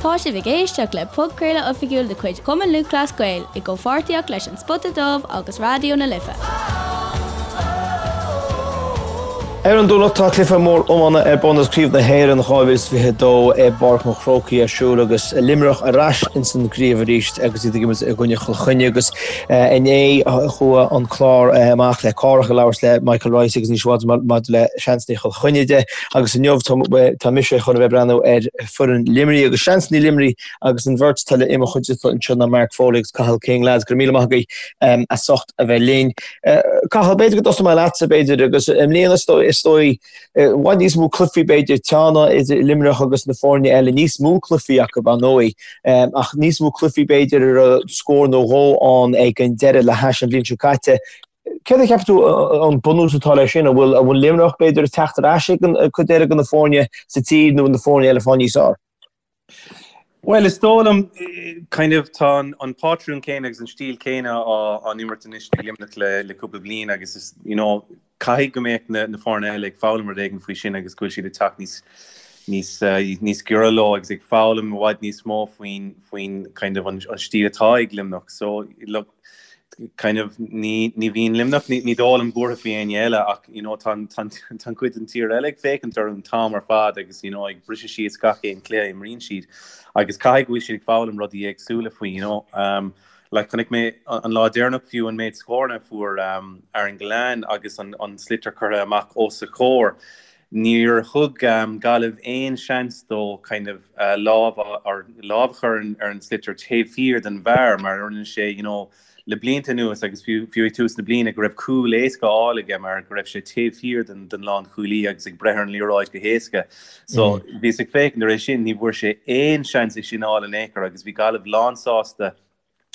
Tá sibh ag éisteacht le podchraoladh oifigiúil de chuid Chumann Lúthchleas Gael i gcomhpháirtíocht leis An Spota Dubh agus Raidió na Life. Ar an Domhnach tá cluiche mór iomána ar bun agus Craobh na hÉireann 2022 i bPáirc an Chrócaigh ar siúl agus Luimneach ar ais ins an gcraobh arís agus iad ag imirt i gcoinne Chill Chainnigh agus inné chuaigh an clár amach le Cárthach ag labhairt le Michael Rice agus Naoise Waters maidir le seansanna Chill Chainnigh de agus inniu tá mise chun a bheith ag breathnú ar foireann Luimnigh agus seansanna Luimnigh Agus an bheirt atá i mo chuideachta anseo ná Mark Foley agus Cathal King. Lads, go raibh míle maith agaibh as ucht a bheith linn. Cathal, b'fhéidir go dtosóidh mé leatsa, b'fhéidir, agus i mbliana is dóigh, is dóigh, i bhfad níos mó cluichí b'fhéidir, teanna idir Luimneach agus na foirne eile, níos mó cluichí acu, ar ndóigh, ach níos mó cluichí b'fhéidir a raibh scór nó dhó ann ag an deireadh le hais an bhliain seo caite. Céard a cheapann tú an bunús atá leis sin? An bhfuil, an bhfuil Luimneach b'fhéidir ag teacht ar ais ag an cuid eile de na foirne sa tír nó na foirne eile ag fáil níos fearr? Bhuel, is dóigh liom, kind of, tá an pátrún céanna agus an stíl céanna á n-imirt anois ag Luimneach le cúpla bliain agus is, you know, caithfidh go mbeadh na foirne eile ag foghlaim rud éigin faoi sin agus go bhfuil siad ag teacht níos, níos, níos giorra leo agus ag foghlaim i bhfad níos mó faoin, faoin kind of an stíl atá ag Luimneach. So, look, kind of ní ní bhíonn Luimneach ní ní dóigh liom buartha faoi éinne eile ach you know tá an tá tá an cuid den tír eile ag féachaint orthu an t-am ar fad agus you know ag briseadh síos gach aon cluiche a imríonn siad agus caithfidh go bhfuil siad ag foghlaim rudaí éagsúla faoi you know um, like chonaic mé an lá deireanach fiú an méid scóranna a fuair um, Aaron Gillane agus an an sliotar curtha amach os a chomhair Níor thug Gaillimh aon seans dó kind of lámh or lámh a chur ar an sliotar taobh thiar den bhfear mar a rinne sé you know le blianta anuas agus fiú fiú ag tús na bliana go raibh cúl éasca á fháil aige mar go raibh sé taobh thiar den den lánchúlaí agus ag breith ar an liathróid go héasca. So bhíos ag féachaint ar é sin ní bhfuair sé aon seans é sin a fháil in aon chor agus bhí Gaillimh lánsásta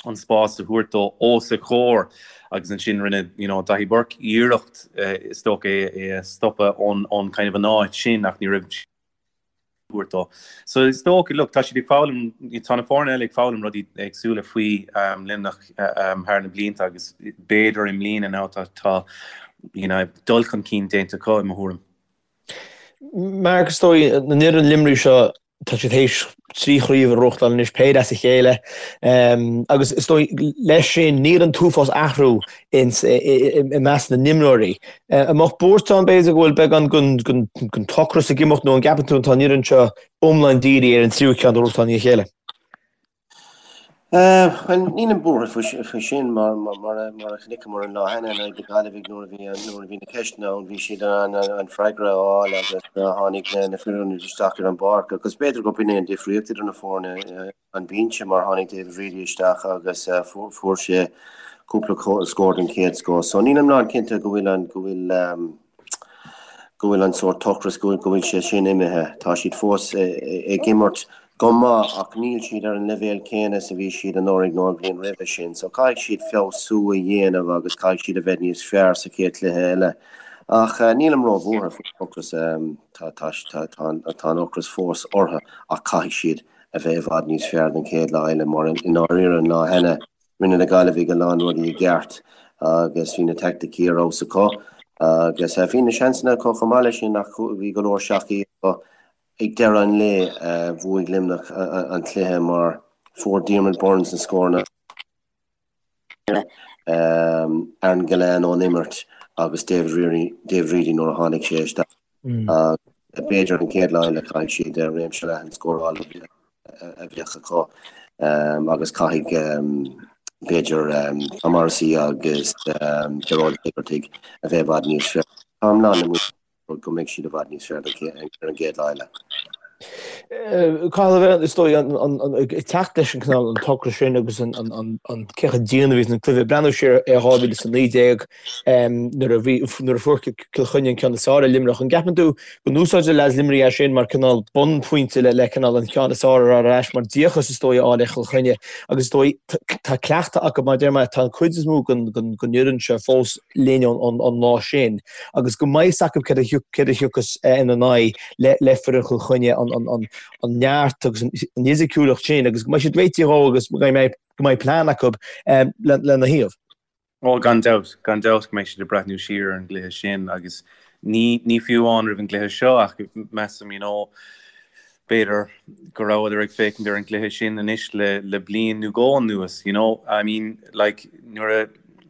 an spás a thabhairt dó os a chomhair agus ansin rinne you know Daithí Burke iarracht is dócha é é a stopadh ón ón kind of an áit sin ach ní raibh thabhairt dó. So is dócha look tá siad ag foghlaim tá na foirne eile ag foghlaim rudaí éagsúla faoi um, Luimneach um, thar na blianta agus b'fhéidir i mbliana now tá tá you know dul chun cinn déanta acu i mo thuairim. Mark is dóigh an fhoireann Luimnigh seo tá siad théis 3 chraobh a ghnóthachtáil anois, péire as a chéile, agus is dóigh leis sin níl an t-uafás athrú i measc na n-imreoirí. An mbeadh buairt ann b'fhéidir go bhfuil beagán den t-ocras ag imeacht nó an gceapann tú tá an fhoireann seo iomlán dírithe ar an tríú ceann a ghnóthachtáil i ndiaidh a chéile? Bhuel, nílim buartha faoi sin mar mar a chonaiceamar an lá cheana in aghaidh na Gaillimhe nuair a bhí nuair a bhí na ceisteanna ann bhí siad in ann an freagra a fháil agus tháinig na fir ionaid isteach ar an bpáirc agus b'fhéidir gurb in é an difríocht idir na foirne an binse mar tháinig David Reidy isteach agus fuair sé cúpla scór den chéad scoth. So nílim lán cinnte go bhfuil an go bhfuil go bhfuil an sórt ocras go bhfuil sé sin imithe. Tá siad fós ag imirt go maith ach níl siad ar an leibhéal céanna is a bhí siad anuraidh nó an bhliain roimhe sin so caithfidh siad feabhsú a dhéanamh agus caithfidh siad a bheith níos fearr sa chéad chluiche eile. Ach nílim róbhuartha faoin ocras, tá tá an ocras fós orthu ach caithfidh siad a bheith i bhfad níos fearr don chéad lá eile mar i ndáiríre an lá cheana rinne na Gaillimhigh a lán rudaí i gceart agus bhí na teaicticí ar fheabhas acu agus bhí na seansanna acu chomh maith leis sin ach bhí go leor seachaí acu. Ag deireadh an lae, bhuaigh Luimneach an cluiche mar fuair Diarmaid Byrnes na scóranna, Aaron Gillane ón imirt agus David Reidy nuair a tháinig sé isteach. B'fhéidir an chéad lá eile caithfidh siad réimse leathan scórála a bheith acu agus caithfidh b'fhéidir Tom Morrissey agus Gearóid Hegarty a bheith i bhfad níos fearr. Táim lán na go mbeidh siad i bhfad níos fearr ar an gcéad lá eile. Cathal, is dóigh, ag teacht leis an cineál an t-ocras sin agus an cé chomh dian a bhí an cluiche, breathnú siar ar 2019 nuair a bhí, nuair a fuair Cill Chainnigh an ceann is fearr ar Luimneach. An gceapann tú go n-úsáidfidh leaids Luimnigh é sin mar cineál bunphointe le cineál an ceann is fearr ar ais mar díocas is dóigh a fháil ar Chill Chainnigh agus is dóigh tá cleachtadh acu mar deir mé tá an cuid is mó den fhoireann seo fós linn ón lá sin agus go mbeidh fhios acu céard a thiocfas ina n-aghaidh le foireann Chill Chainnigh, an neart agus an fhisiciúlacht sin agus go mbeidh siad réitithe dhó agus go mbeidh plean acu lena thaobh. Ó, gan dabht, gan dabht go mbeidh siad ag breathnú siar ar an gcluiche sin agus ní, ní fiú amháin roimh an gcluiche seo ach measaim, you know. B'fhéidir go rabhadar ag féachaint ar an gcluiche sin anois le le bliain nó dhó anuas, you know, I mean, like, nuair a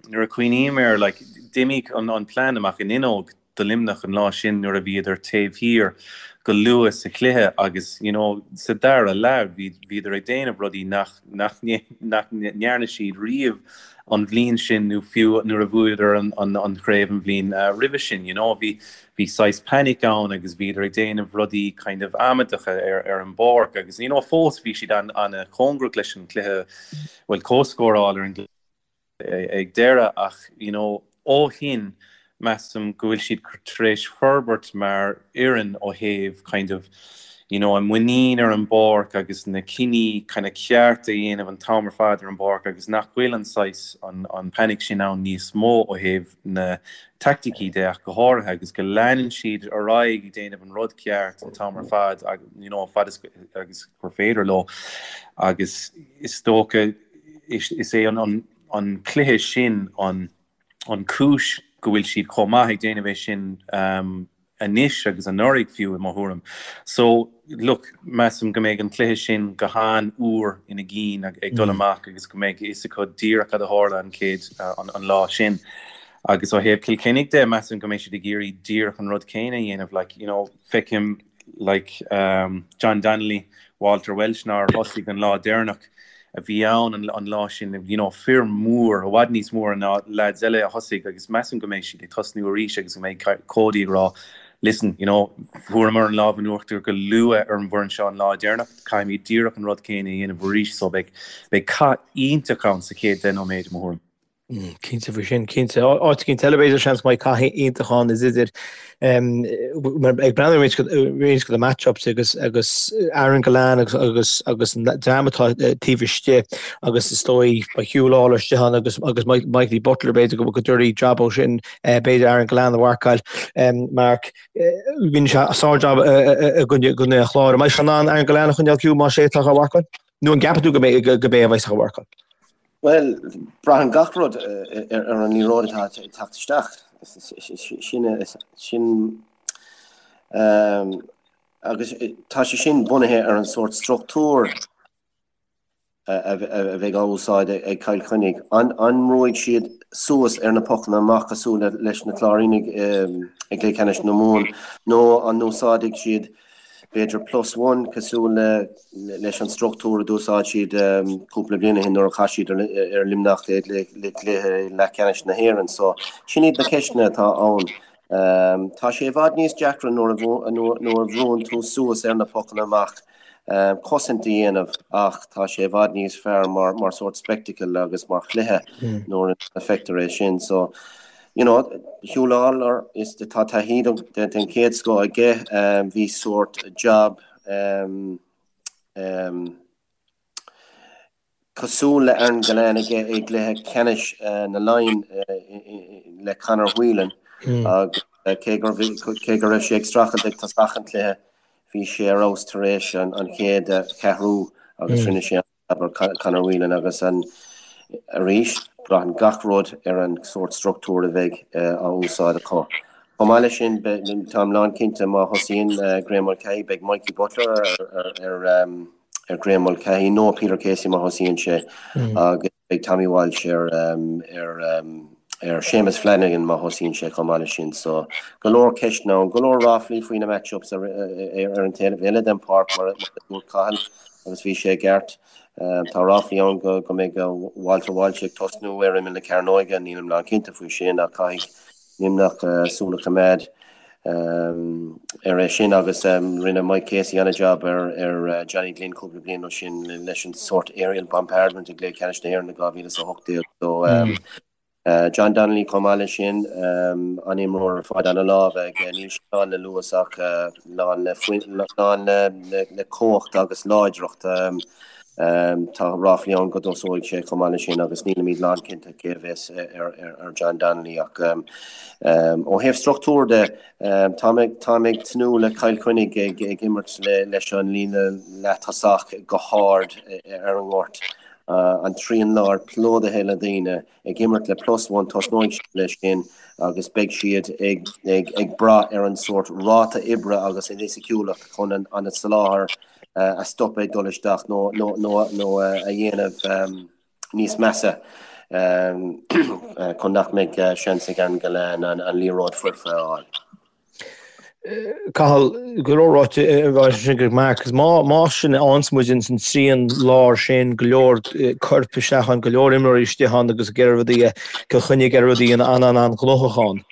nuair a cuimhním air, like, d'imigh an an plean amach an fhuinneog do Luimneach an lá sin nuair a bhíodar taobh thiar go luath sa chluiche agus, you know, sa dara leath bhí bhíodar ag déanamh rudaí nach nach nach ndearna siad riamh an bhliain sin nó fiú nuair a bhuadar an an an chraobh an bhliain roimhe sin, you know, bhí Bhí saghas panic ann agus bhíodar ag déanamh rudaí kind of amaideacha ar ar an bpáirc agus you know fós bhí siad an an-chóngarach leis an cluiche, bhuel comhscóráil ar an gcluiche ag deireadh ach you know ó shin measaim go bhfuil siad tar éis forbairt mar fhoireann ó thaobh kind of you know a muinín ar an bpáirc agus na cinní kind of ceart a dhéanamh an t-am ar fad ar an bpáirc agus nach bhfuil an saghas an an panic sin ann níos mó ó thaobh na teaicticí de ach go háirithe agus go leanann siad ar aghaidh ag déanamh an rud ceart an t-am ar fad you know fad is agus gur féidir leo agus is dócha is é an an an cluiche sin an an cúis go bhfuil siad chomh maith ag déanamh é sin um, anois agus anuraidh fiú i mo thuairim. So, look, measaim go mbeidh an cluiche sin go han-úr ina gcinn ag dul amach agus go mbeidh a fhios acu díreach cad a tharla an chéad, an lá sin. Agus ó thaobh Chill Chainnigh de, measaim go mbeidh siad ag iarraidh díreach an rud céanna a dhéanamh. Like, you know, feicim like John Donnelly, Walter Walsh nár thosaigh an lá deireanach a bhí ann an lá sin, you know, fir mór, i bhfad níos mór ná lads eile a thosaigh agus measaim go mbeidh siad ag tosnú arís agus go mbeidh Cody ag rá listen, you know, fuaireamar an lámh in uachtar go luath ar an bhfoireann seo an lá deireanach, caithfimid díreach an rud céanna a dhéanamh arís so beidh, beidh cath iontach ann sa chéad 10 nóiméad i mo thuairim. Cinnte faoi sin, cinnte. Áit éicint eile b'fhéidir seans go mbeidh cath iontach ann is idir ag breathnú ar roinnt de na match-ups agus agus Aaron Gillane agus agus agus an dream atá taobh istigh agus is dóigh beidh Huw Lawlor istigh ann agus agus Michael Butler b'fhéidir go go dtabharfaidh jab ó sin b'fhéidir Aaron Gillane a mharcáil. Mark, rinne sé sár-jab i gcoinne an Chláir. An mbeidh sé in ann Aaron Gillane a choinneáil ciúin más é atá á mharcáil? Nó an gceapann tú go mbeidh go mbeidh a bheas á mharcáil? Bhuel, braitheann gach rud ar an liathróid atá ag teacht isteach. Sin, sin, agus tá sé sin bunaithe ar an sórt struchtúr a bheidh á úsáid ag Cill Chainnigh. An mbrúfaidh siad suas ar na pocanna amach cosúil leis na Cláirínigh i gcluiche ceannais na Mumhan nó an úsáidfidh siad b'fhéidir plus one cosúil le leis an struchtúr a d'úsáid siad cúpla bliain ó shin nuair a chas siad ar Luimneach i gcluiche leathcheannais na hÉireann. So sin iad na ceisteanna atá ann. Tá sé i bhfad níos deacra nuair a nuair a bhrúann tú suas ar na pocanna amach cosaint a dhéanamh ach tá sé i bhfad níos fearr mar mar sórt spectacle agus mar chluiche nuair a feictear é sin. So You know, Huw Lawlor, is tá taithí den chéad scoth aige, bhí sórt jab cosúil le Aaron Gillane aige i gcluiche ceannais na Laighean le Conor Whelan agus cé go cé go raibh sé ag streachailt ag tosach an chluiche, bhí sé ar fheabhas tar éis an chéad cheathrú agus rinne sé ar Conor Whelan agus an arís, braitheann gach rud ar an sórt struchtúr a bheidh á úsáid acu. Chomh maith leis sin, táim lánchinnte má thosaíonn Graeme Mulcahy, beidh Mikey Butler ar Graeme Mulcahy nó Peter Casey má thosaíonn sé agus beidh Tommy Walsh ar ar Séamus Flanagan má thosaíonn sé chomh maith leis sin. So, go leor ceisteanna ann, go leor ráflaí faoi na match-ups ar an taobh eile den pháirc mar a dúirt Cathal. Agus bhí sé i gceart. Tá ráflaí ann go mbeidh Walter Walsh ag tosnú ar imeall na cearnóige, nílim lánchinnte faoi sin ach caithfidh Luimneach súil a choimeád ar é sin agus rinne Mike Casey an-jab ar Johnny Glynn cúpla bliain ó sin leis an sórt aerial bombardment i gcluiche ceannais na hÉireann i 2018. So John Donnelly chomh maith leis sin, an-imreoir ar fad, an-lámh aige, níl sé lán le luas ach lán le lán le cumhacht agus láidreacht. Tá ráflaí ann go dtosóidh sé chomh maith leis sin agus nílimid lánchinnte cé a bheas ar John Donnelly ach ó thaobh struchtúr de, táim ag tnúth le Cill Chainnigh ag imirt leis an líne leath-tosach go hard ar an ngort. An trian láir plódaithe le daoine ag imirt le plus one, tosnóidh siad leis sin agus beidh siad ag brath ar an sórt ráta oibre agus an fhisiciúlacht chun an soláthar a stopadh ag dul isteach nó a dhéanamh níos measa chun nach mbeidh seans ag Aaron Gillane an liathróid foirfe a fháil. Cathal, go leor ráite ansin ag Mark, agus má más sin a fhaigheanns muid ins an trian láir sin, go leor coirp isteach ann, go leor imreoirí istigh ann agus ag iarraidh rudaí a, Cill Chainnigh ag iarraidh rudaí an-an-an-ghnóthach ann.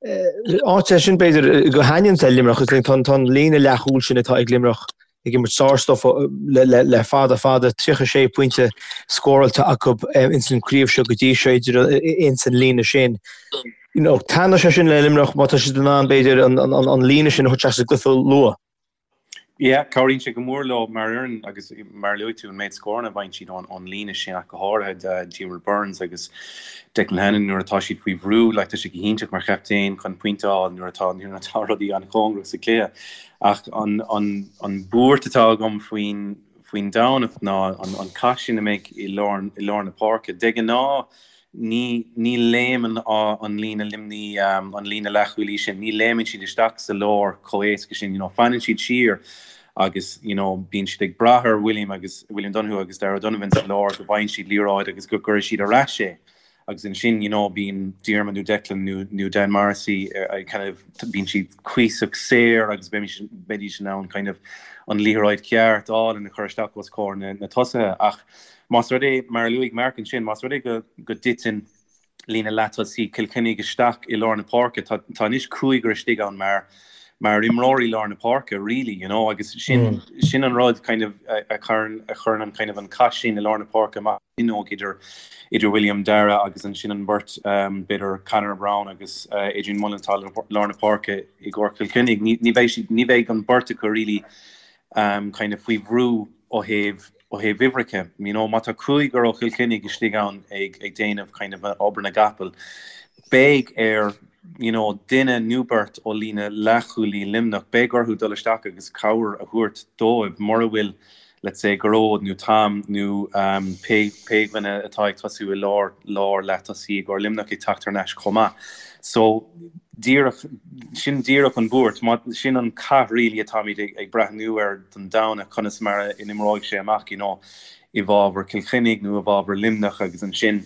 Áit é sin b'fhéidir go thaitníonn le Luimneach, is tá an líne leathchúil sin atá ag Luimneach ag imirt sárstuif le fada fada, 36 pointe scóráilte acu ins an chraobh seo go dtí seo idir ins an líne sin. You know, taitneoidh sé sin le Luimneach má tá siad in ann b'fhéidir an líne sin a thabhairt isteach sa gcluiche luath. Yeah, cabhraíonn sé go mór leo mar fhoireann agus mar a luaigh tú an méid scóranna a bhfaigheann siad ón líne sin ach go háirithe Diarmaid Byrnes agus Declan Hannon nuair atá siad faoi bhrú, like tá sé go hiontach mar chaptaen chun pointe a fháil nuair atá nuair atá rudaí an-chóngarach sa chluiche. Ach an an an buairt atá agam faoin faoin Domhnach ná an an cath sin a mbeidh i lár i lár na páirce. De ghnáth Ní, ní léimeann an líne Luimní, an líne leathchúlaí sin, ní léimeann siad isteach sa lár chomh héasca sin, you know, fanann siad siar agus, you know, bíonn siad ag brath ar William agus, William Donoghue agus Darragh O'Donovan sa lár go bhfaigheann siad liathróid agus go gcuirfidh siad ar ais é. Agus ansin, you know, bíonn Diarmuid nó Declan nó, nó Dan Morrissey kind of, bíonn siad cuíosach saor agus beidís in ann kind of an liathróid cheart a fháil and a chur isteach os comhair na, na tosaithe. Ach, Más rud é, mar a luaigh Mark ansin, más rud é go dtiteann líne leatosaí Chill Chainnigh isteach i lár na páirce, tá tá anois cúigear istigh ann mar mar imreoirí lár na páirce really, you know, agus sin sin an rud kind of a chuireann a chuireann an kind of an cath sin i lár na páirce amach an fhuinneog idir idir William Darragh agus ansin an bheirt b'fhéidir Conor Browne agus Adrian Mullen atá i lár na páirce i gcomhair Chill Chainnigh. Ní ní bheidh siad ní bheidh an bheirt acu really kind of faoi bhrú ó thaobh ó thaobh uimhreacha, you know, má tá cúigear ó Chill Chainnigh istigh ann ag ag déanamh kind of obair na gcapall, beidh ar, you know, duine nó beirt ó líne leathchúlaí Luimneach, beidh orthu dul isteach agus cabhair a thabhairt dóibh mura bhfuil, let's say, Gearóid nó Tom nó um, pé pé dhuine atá ag tosú i lár lár leath-tosaí i gcomhair Luimneach ag teacht thar n-ais chomh maith. So, díreach, sin díreach an bhuairt, sin an cath really atáimid ag breathnú air don Domhnach, conas mar a n-imreoidh sé amach, you know, i bhfabhar Cill Chainnigh nó i bhfabhar Luimneach agus ansin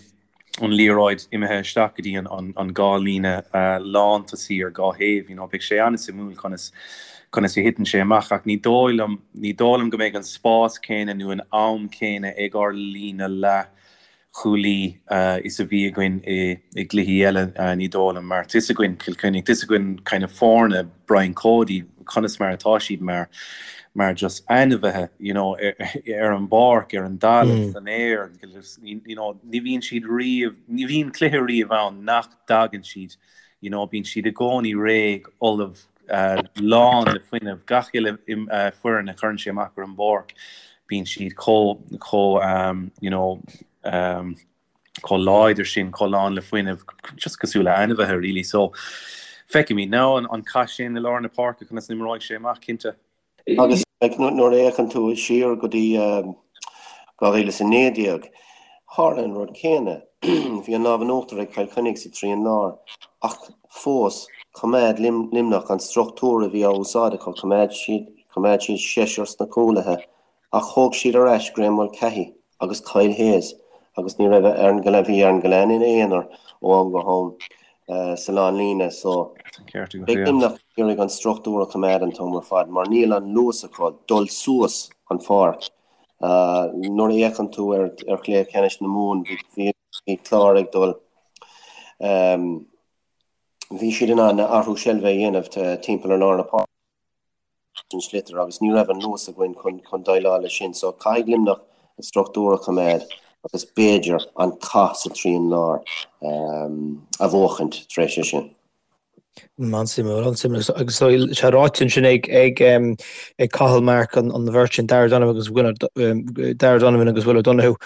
an liathróid imithe isteach go dtí an dhá líne lántosaí ar dhá thaobh, you know, beidh sé an-suimiúil conas conas a thiteann sé amach ach ní dóigh liom, ní dóigh liom go mbeidh an spás céanna nó an am céanna ag ár líne leath chúlaí is a bhí againn i gcluichí eile, ní dóigh liom, mar tá's againn Cill Chainnigh, tá's againn kind of foirne Brian Cody, conas mar atá siad mar, mar just ainmhithe, you know, ar an bpáirc, ar an dtalamh, san aer, you know, ní bhíonn siad riamh, ní bhíonn cluiche riamh ann nach dtagann siad, you know, bíonn siad i gcónaí réidh, ullamh, lán le fuinneamh, gach uile foireann a chuireann sé amach ar an bpáirc, bíonn siad chomh, chomh, you know, chomh láidir sin, chomh lán le fuinneamh, just cosúil le ainmhithe really. So, feicfimid now an cath sin i lár na páirce, conas a n-imreoidh sé amach, cinnte. Agus nuair a fhéachann tú siar go dtí 2019, tharla an rud céanna. Bhí an lámh in uachtar ag Cill Chainnigh sa trian láir, ach fós, choimeád Luimneach an struchtúr a bhí á úsáid acu, choimeád siad, choimeád siad seisear sna cúlaithe, ach thóg siad ar ais Graeme Mulcahy agus Kyle Hayes agus ní raibh Aaron Gillane, bhí Aaron Gillane ina aonar ó am go ham sa lánlíne so beidh Luimneach ag iarraidh an struchtúr a choimeád an t-am ar fad mar níl an luas acu dul suas an pháirc. Nuair a fhéachann tú ar chluiche ceannais na Mumhan bhí Clár ag dul bhí siad in ann athrú seilbhe a dhéanamh timpeall ar lár na páirce. an sliotar agus ní raibh an luas againn chun déileáil leis sin so caithfidh Luimneach an struchtúr a choimeád agus b'fhéidir an cath sa trian láir a bhuachaint tar éis sin. An-suimiúil, an-suimiúil. Agus tá sé ráite ansin ag ag ag Cathal Mark an an bheirt sin Darragh Donovan agus Will Darragh Donovan agus Will O'Donoghue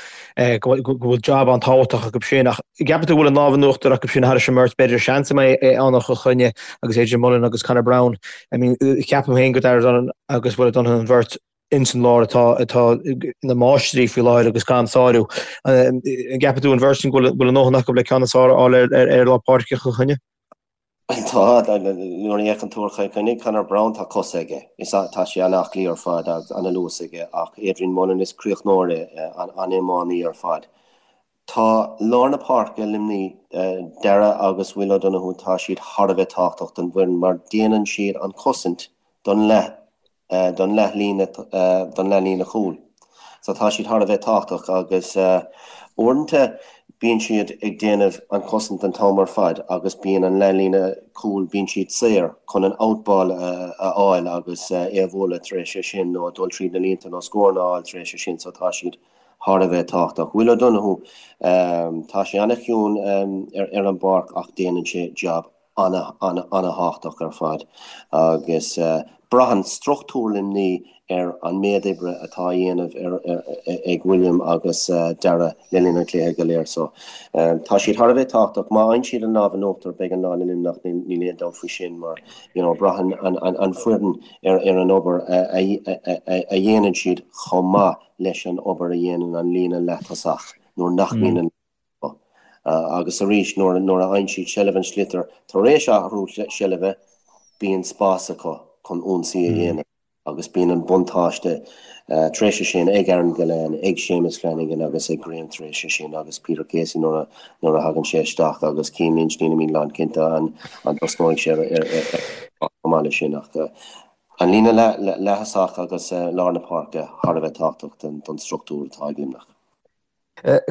go bhfuil job an-tábhachtach acu sin ach gceapann tú go bhfuil an lámh in uachtar acu sin thairis an mbeirt b'fhéidir seans a mbeidh ann ó Chill Chainnigh agus Adrian Mullen agus Conor Browne. I mean, ceapaim féin go Darragh Donovan agus Will O'Donoghue an bheirt. ins an lár atá atá ina máistrí faoi láthair agus gan sárú. An gceapann tú an bheirt sin go bhfuil a ndóthain acu le ceann is fearr a fháil ar ar lár páirce Chill Chainnigh? Tá, nuair a fhéachann tú ar Chill Chainnigh, Conor Browne, tá cosa aige. Is tá sé an-aclaí ar fad agus an-luas aige ach Adrian Mullen is críochnóir é, an-iománaí ar fad. Tá lár na páirce Luimnigh, Darragh agus Will O'Donoghue, tá siad thar a bheith tábhachtach don bhfoireann mar déanann siad an chosaint don leath don leathlíne don leathlíne chúil. So tá siad thar a bheith tábhachtach agus uaireanta bíonn siad ag déanamh an chosaint an t-am ar fad agus bíonn an leathlíne cúil, bíonn siad saor chun an out ball a fháil agus é a bhualadh tar éis é sin nó dul tríd na línte nó scóranna a fháil tar éis é sin so tá siad thar a bheith tábhachtach. Will O'Donoghue, tá sé an-chiúin ar an bpáirc ach déanann sé jab an-an-an-thábhachtach ar fad agus braitheann struchtúr Luimnigh ar an méid oibre atá á dhéanamh ag William agus Darragh le linn an chluiche go léir. So tá siad thar a bheith tábhachtach. Má fhaigheann siad an lámh in uachtar beidh an lá le Luimneach, níl aon dabht faoi sin mar you know braitheann an foireann ar an obair a dhéanann siad chomh maith leis an obair a dhéanann an líne leath-tosach nuair nach mbíonn an Agus arís, nuair a fhaigheann siad seilbh an sliotair tar éis athrú seilbhe, bíonn spás acu chun ionsaí a dhéanamh agus bíonn an buntáiste tar éis sin ag Aaron Gillane, ag Séamus Flanagan agus ag Graham tar éis sin agus Peter Casey nuair a thagann sé isteach agus Cian Lynch, nílimid lánchinnte an dtosnóidh sé ar chomh maith leis sin ach an líne leath-thosach agus lár na páirce thar a bheith tábhachtach don struchtúr atá ag Luimneach.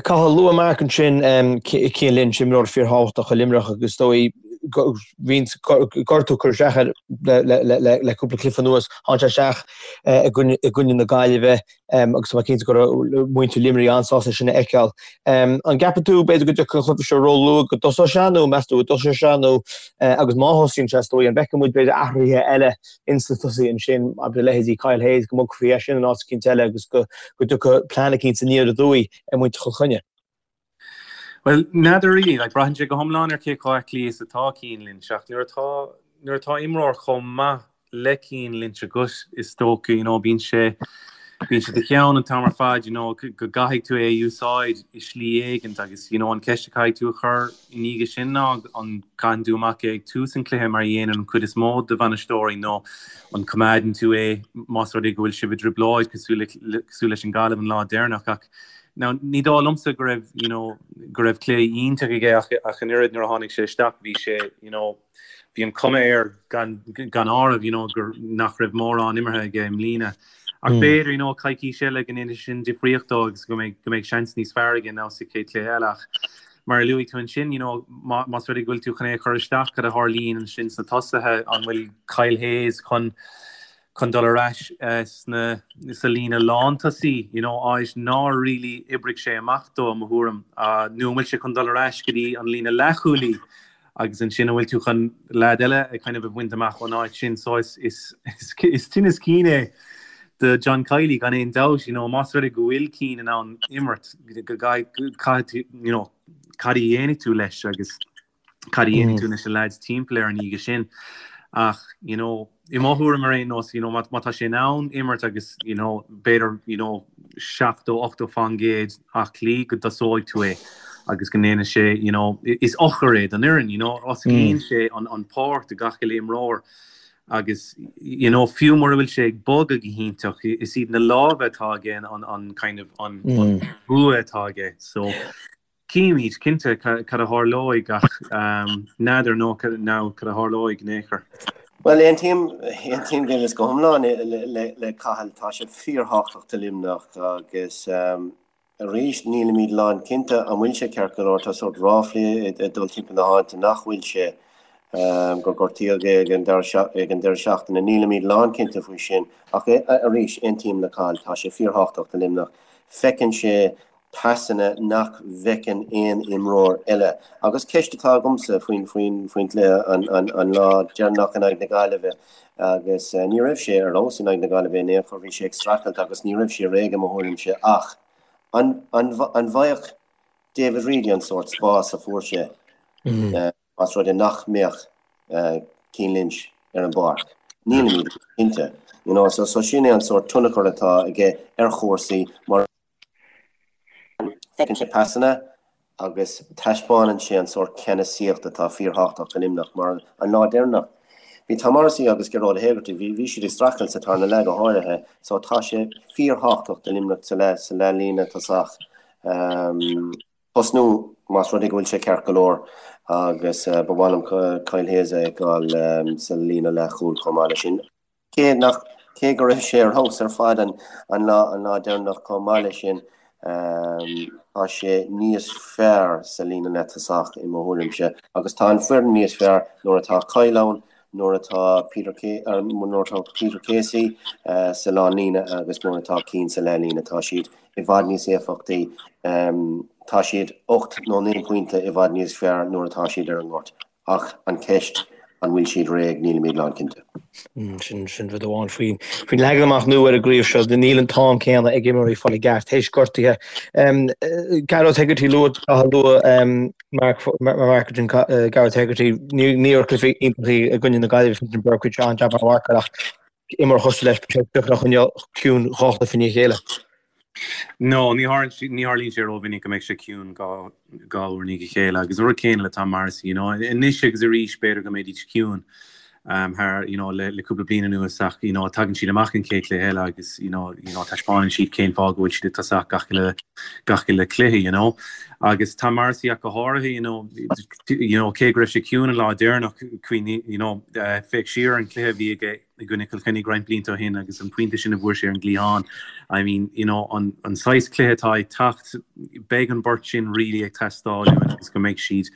Cathal, luaigh Mark ansin Cian Lynch, imreoir fíorthábhachtach do Luimneach agus is dóigh bhí gortú ag cur isteach air le cúpla cluiche anuas. Tháinig sé isteach i gcoinne na Gaillimhe agus tá mé cinnte go raibh muintir Luimnigh an-sásta é sin a fheiceáil. An gceapann tú b'fhéidir go dtiocfaidh an cluiche seo róluath go dtosóidh sé nó meas tú go dtosóidh sé nó agus má thosaíonn sé is dóigh an bhfeicfidh muid b'fhéidir athruithe eile ins na tosaithe ansin, abair leithéidí Kyle Hayes, go mbogfaí eisean in áit eicínt eile agus go dtiocfadh plean eicínt aniar aduaidh ar mhuintir Chill Chainnigh. Bhuel, n'fheadar really, like, braitheann sé go hiomlán ar cé chomh aclaí is atá Cian Lynch, ach nuair atá, nuair atá imreoir chomh maith le Cian Lynch agat, is dócha, you know, bíonn sé, bíonn sé i do cheann an t-am ar fad, you know, go gcaithfidh tú é a úsáid i slí éigint agus, you know, an ceist a chaithfidh tú a chur I ndiaidh sin ná an gcaitheann tú amach é ag tús an chluiche mar a dhéanann an chuid is mó de bhainisteoirí nó an coimeádann tú é más rud é go bhfuil sibh i dtrioblóid cosúil cosúil leis an Gaillimh an lá deireanach ach now ní dóigh liomsa go raibh you know go raibh cluiche iontach aige ach ach an oiread nuair a tháinig sé isteach bhí sé you know bhí an cuma air gan gan áireamh you know gur nach raibh mórán imeartha aige i mbliana. Ach b'fhéidir you know coicís eile go ndéanfaidh sin difríocht dó agus go mbeidh go mbeidh seans níos fearr aige ná sa chéad chluiche eile ach mar a luaigh tú ansin you know má más rud é go bhfuil tú chun é a chur isteach cad a tharlaíonn ansin sna tosaithe an bhfuil Kyle Hayes chun chun dul ar ais sna sa líne lántosaí you know áit nár really oibrigh sé amach dó i mo thuairim nó an bhfuil sé chun dul ar ais go dtí an líne leathchúlaí agus ansin an bhfuil tú chun leaid eile a kind of a bhaint amach ón áit sin so is is is tinneas cinn é do John Kiely gan aon dabht you know más rud é go bhfuil Cian in ann imirt go caithfidh tú you know cad a dhéanfaidh tú leis agus cad a dhéanfaidh tú leis na lads timpeall air an oíche sin ach you know I mo thuairim ar aon nós, you know, má tá sé in ann imirt agus, you know, b'fhéidir, you know, 70, 80% aclaí go dtosóidh tú é agus go ndéanfaidh sé, you know, is eochair é don fhoireann, you know, osclaíonn sé an, an pháirc do gach uile imreoir agus, you know, fiú mura bhfuil sé ag bogadh go hiontach, is iad na lámha atá aige an, an kind of, an, an bua atá aige. So, Cífimid, cinnte, cad a tharlóidh ach n'fheadar nó cad a tharlóidh in aon chor. Bhuel, aontaím, aontaím go go hiomlán le Cathal. Tá sé fíorthábhachtach do Luimneach agus arís nílimid lánchinnte an bhfuil sé ceart go leor. Tá sórt ráflaí ag dul timpeall na háite nach bhfuil sé, gur gortaíodh é ag an deireadh seachtaine. Nílimid lánchinnte faoi sin ach arís, aontaím le Cathal, tá sé fíorthábhachtach do Luimneach. Feiceann sé pasanna nach bhfeiceann aon imreoir eile. Agus ceist atá agamsa faoin gcluiche an lá deireanach in aghaidh na Gaillimhe, agus ní raibh sé ar fheabhas in aghaidh na Gaillimhe in aon chor, bhí sé ag streachailt agus ní raibh sé réidh i mo thuairimse, ach an bhfaigheadh David Reidy an sórt spás a fuair sé? Más rud é nach mbeadh Cian Lynch ar an bpáirc, nílimid cinnte. You know, so, so sin é an sórt tionchar atá aige ar chúrsaí mar feiceann sé pasanna agus taispeánann sé an sórt ceannasaíocht atá fíorthábhachtach do Luimneach mar an lá deireanach bhí Tom Morrissey agus Gearóid Hegarty, bhí, bhí siad ag streachailt sa tarna leath go háirithe, so tá sé fíorthábhachtach do Luimneach sa leath, sa leathlíne tosach. Um, tosnú más rud é go bhfuil sé ceart go leor agus ba mhaith liom Kyle Hayes a fheiceáil sa líne leathchúil chomh maith leis sin. Cé nach, cé go raibh sé ar fheabhas ar fad an lá, an lá deireanach chomh maith leis sin, tá sé níos fearr sa líne leath-tosach i mo thuairimse agus tá an foireann níos fearr nuair atá Kyle ann, nuair atá Peter nuair atá Peter Casey sa lánlíne agus nuair atá Cian sa leathlíne. Tá siad i bhfad níos éifeachtaí. Tá siad 8 nó 9 pointe i bhfad níos fearr nuair atá siad ar an ngort. Ach an ceist, an bhfuil siad réidh, nílimid lánchinnte. Sin sin rud amháin faoin faoin leagan amach nua ar an gcraobh seo, níl an t-am céanna ag imreoirí fáil i gceart théis gortuithe. Gearóid Hegarty luaigh luaigh Mark Mark Gearóid Hegarty ní raibh cluiche iontach i gcoinne na Gaillimhe Fintan Burke chuir sé an-jab ar mharcáil ach imreoir cosúil leis beidh sé deacair a choinneáil ciúin dhá chluiche i ndiaidh a chéile. No, ní tharlaíonn sé rómhinic go mbeidh sé ciúin dhá uair i ndiaidh a chéile agus an rud céanna le Tom Morrissey, you know, anois agus arís b'fhéidir go mbeidís ciúin thar, you know, le le cúpla bliain anuas ach, you know, tagann siad amach an chéad chluiche eile agus, you know, you know, taispeánann siad cén fáth go bhfuil siad ag tosach gach uile gach uile cluiche, you know. Agus Tom Morrissey ach go háirithe, you know, you know, cé go raibh sé ciúin an lá deireanach, cuimhnigh, you know, féach siar ar an cluiche a bhí aige i gcoinne Chill Chainnigh roinnt blianta ó shin agus an pointe sin a bhfuair sé ar an gcliathán. I mean, you know, an, an saghas cluiche atá ag teacht, beidh an beirt sin really ag teastáil uainn agus go mbeidh siad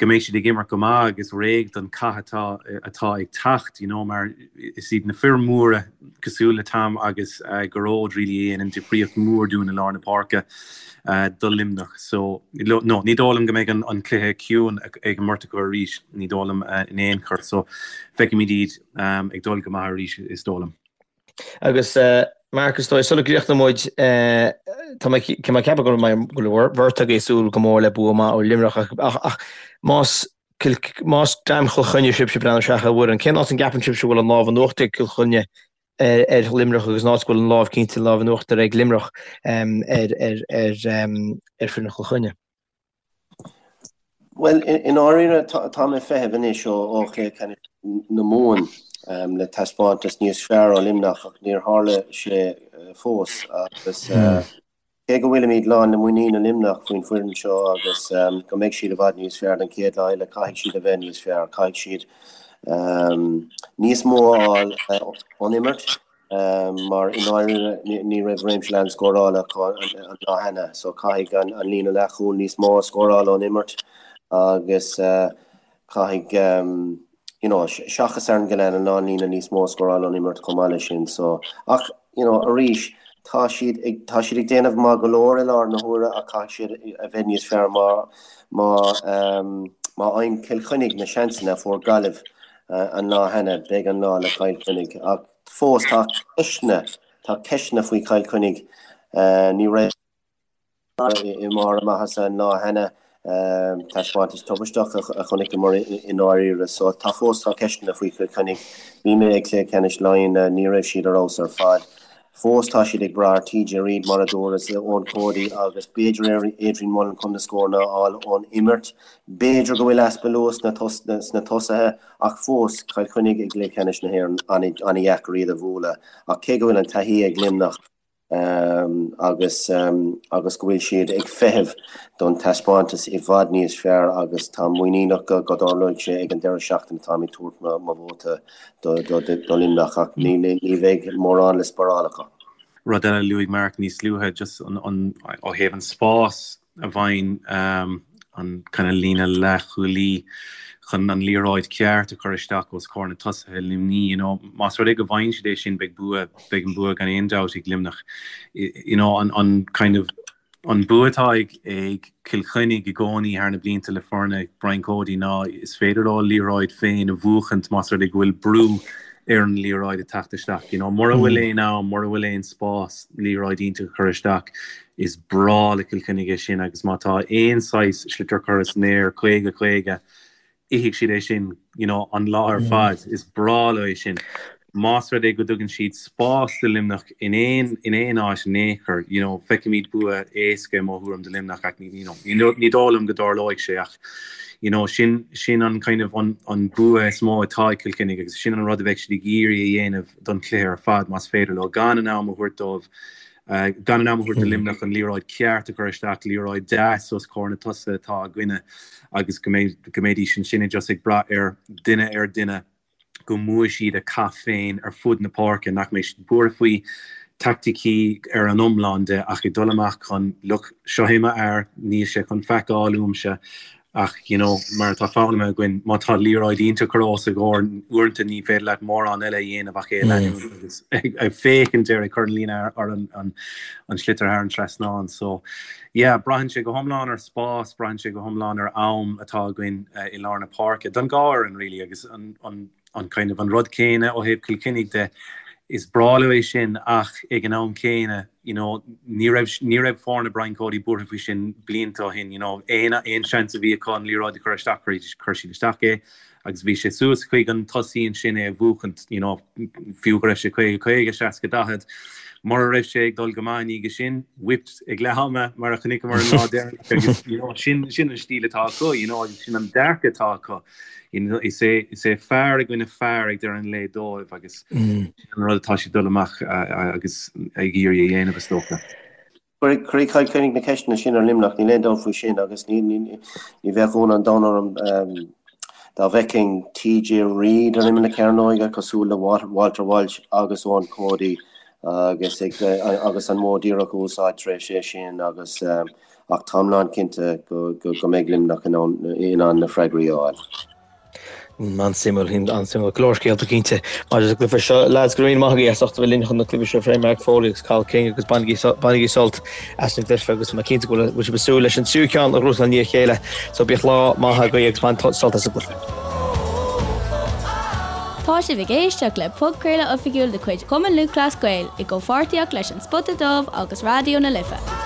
go mbeidh siad ag imirt go maith agus réidh don chath atá atá ag teacht, you know, mar is iad na fir mhóra cosúil le Tom agus uh, Gearóid really a dhéanann difríocht mhór dúinn i lár na páirce uh, do Luimneach. So, no, ní dóigh liom go mbeidh an, an cluiche ciúin ag an mbeirt acu arís, ní dóigh liom uh, in aon chor. So, feicfimid iad ag dul go maith arís, is dóigh liom. Agus Mark, is dóigh, sula gcríochnóidh muid, tá mé ag ceapadh go bhfuil an bheirt agaibh ag súil go mór le bua maith ó Luimneach ach más más dream Chill Chainnigh sibhse ag breathnú isteach ar an bhfoireann, cén áit an gceapann sibhse go bhfuil an lámh in uachtar ag Cill Chainnigh ar Luimneach agus an áit go bhfuil an lámh cinnte an lámh in uachtar ag Luimneach ar ar ar foireann Chill Chainnigh? Bhuel, i ndáiríre, tá mé ag feitheamh anois ó chluiche ceannais na Mumhan le taispeántas níos fearr ó Luimneach ach níor tharla sé fós agus cé go bhfuilimid lán le muinín i Luimneach faoin bhfoireann seo agus go mbeidh siad i bhfad níos fearr don chéad lá eile, caithfidh siad a bheith níos fearr, caithfidh siad níos mó a fháil ón imirt. mar i ndáiríre ní raibh réimse leathan scórála acu an lá cheana so caithfidh an líne leathchúil níos mó a scóráil ón imirt agus caithfidh you know seachas Aaron Gillane an lánlíne níos mó a scóráil ón imirt chomh maith leis sin so ach you know arís tá siad ag tá siad ag déanamh maith go leor i láthair na huaire ach caithfidh siad a bheith níos fearr má má má fhaigheann Cill Chainnigh na seansanna a fuair Gaillimh an lá cheana beidh an lá le Cill Chainnigh ach Fós tá ceisteanna, tá ceisteanna faoi Chill Chainnigh. Ní raibh i mbarr a maitheasa an lá cheana. Taispeántas tubaisteach a chonaiceamar i ndáiríre. So tá fós tá ceisteanna faoi Chill Chainnigh. Bhí mé ag Cluiche Ceannais Laighean, ní raibh siad ar fheabhas ar fad. Fós tá siad ag brath ar TJ Reid mar a dúras, Eoin Cody agus b'fhéidir Adrian Mullen chun na scóranna a fháil ón imirt. B'fhéidir go bhfuil easpa luas sna tosaithe. Ach fós, Cill Chainnigh i gcluiche ceannais na hÉireann, an-dheacair iad a bhualadh. Ach cé go bhfuil an taithí ag Luimneach agus agus go bhfuil siad ag feitheamh don taispeántas i bhfad níos fearr agus táim muiníneach go dtarlóidh sé ag an deireadh seachtaine, táim ag tabhairt mo vóta do Luimneach ach ní bheidh mórán le spáráil acu. Rud eile a luaigh Mark níos luaithe, just an ó thaobh an spás a bhfaigheann an kind of líne leathchúlaí chun an liathróid ceart a chur isteach os comhair na tosaithe Luimní, you know, más rud é go bhfaigheann siad é sin beidh bua, beidh an bua gan aon dabht ag Luimneach. You know, an, an kind of, an bua atá ag, ag Cill Chainnigh i gcónaí thar na blianta le foirne Brian Cody ná is féidir leo liathróid féin a bhuachaint más rud é go bhfuil brú ar an liathróid ag teacht isteach. You know, mura bhfuil aon am, mura bhfuil aon spás liathróid iontach a chur isteach, Is breá le Cill Chainnigh é sin agus má tá aon saghas sliotar curtha san aer 50, 50, ithfidh siad é sin you know an lá ar fad. Is breá leo é sin. Más rud é go dtugann siad spás do Luimneach in aon in aon áit in aon chor, you know, feicfimid bua éasca i mo thuairim do Luimneach ach you know, ní dóigh liom go dtarlóidh sé ach you know, sin sin an kind of an an bua is mó atá ag Cill Chainnigh agus sin an rud a bheidh siad ag iarraidh a dhéanamh don chluiche ar fad más féidir leo gan an am a thabhairt dóibh gan an am a thabhairt do Luimneach an liathróid ceart a chur isteach, liathróid deas os comhair na tosaithe atá againne agus go mbeidh go mbeidís ansin just ag brath ar duine ar duine go mbuafaidh siad a cath féin ar fud na páirce, nach mbeidh siad buartha faoi taicticí ar an iomlán de ach ag dul amach chun, look, seo é m'fhear, níl sé chun faic a fháil uaimse ach you know, mar atá foghlamtha againn, má tá liathróid iontach curtha os a gcomhair, uaireanta ní féidir leat mórán eile a dhéanamh ach é a leanúint agus ag féachaint air ag cur an líne ar an sliotar thar an trasnán. So yeah, braitheann sé go hiomlán ar spás, braitheann sé go hiomlán ar am atá againn i lár na páirce don dhá fhoireann really agus an an an kind of an rud céanna ó thaobh Cill Chainnigh de, is breá leo é sin ach ag an am céanna, you know, ní raibh ní raibh foirne Brian Cody buartha faoi sin blianta ó shin, you know, aon aon seans a bhí acu an liathróid a chur isteach chuir siad isteach é agus bhí sé suas chuig an tosaí ansin é a bhuachaint, you know, fiú go raibh sé 50, 50, 60, 40. Mura raibh sé ag dul go maith i ndiaidh sin, whipped ag leath ama mar a chonaiceamar an lá deireanach agus, you know, sin, sin an stíl atá acu, you know, agus sin an dearcadh atá acu. You know, is é, is é fear i gcoinne fear ag deireadh an lae dóibh agus sin an rud atá siad dul amach agus ag iarraidh a dhéanamh, is dócha. Cuirfidh Cill Chainnigh na ceisteanna sin ar Luimneach, níl aon dabht faoi sin agus ní bheadh ionadh an domhain orm dá bhfeicfinn TJ Reid ar imeall na cearnóige cosúil le Walter Walsh agus Eoin Cody agus agus an modh díreach a úsáid tar éis é sin agus ach táim lán cinnte go mbeidh Luimneach in ann na freagraí a fháil. An-suimiúil, an-suimiúil. Go leor scéalta cinnte maidir leis an gcluiche seo. Lads, go raibh míle maith agaibh as ucht a bheith linn chun an cluiche seo a phlé, Mark Foley agus Cathal King agus bainigí bainigí sult as an gcluiche agus tá mé cinnte go bhfuil sibh ag súil leis an tríú ceann a ghnóthachtáil i ndiaidh a chéile. So bíodh lá maith agaibh agus bain sult as an gcluiche. Tá sibh ag éisteacht le podchraoladh oifigiúil de chuid Chumann Lúthchleas Gael i gcomhpháirtíocht leis An Spota Dubh agus Raidió na Life.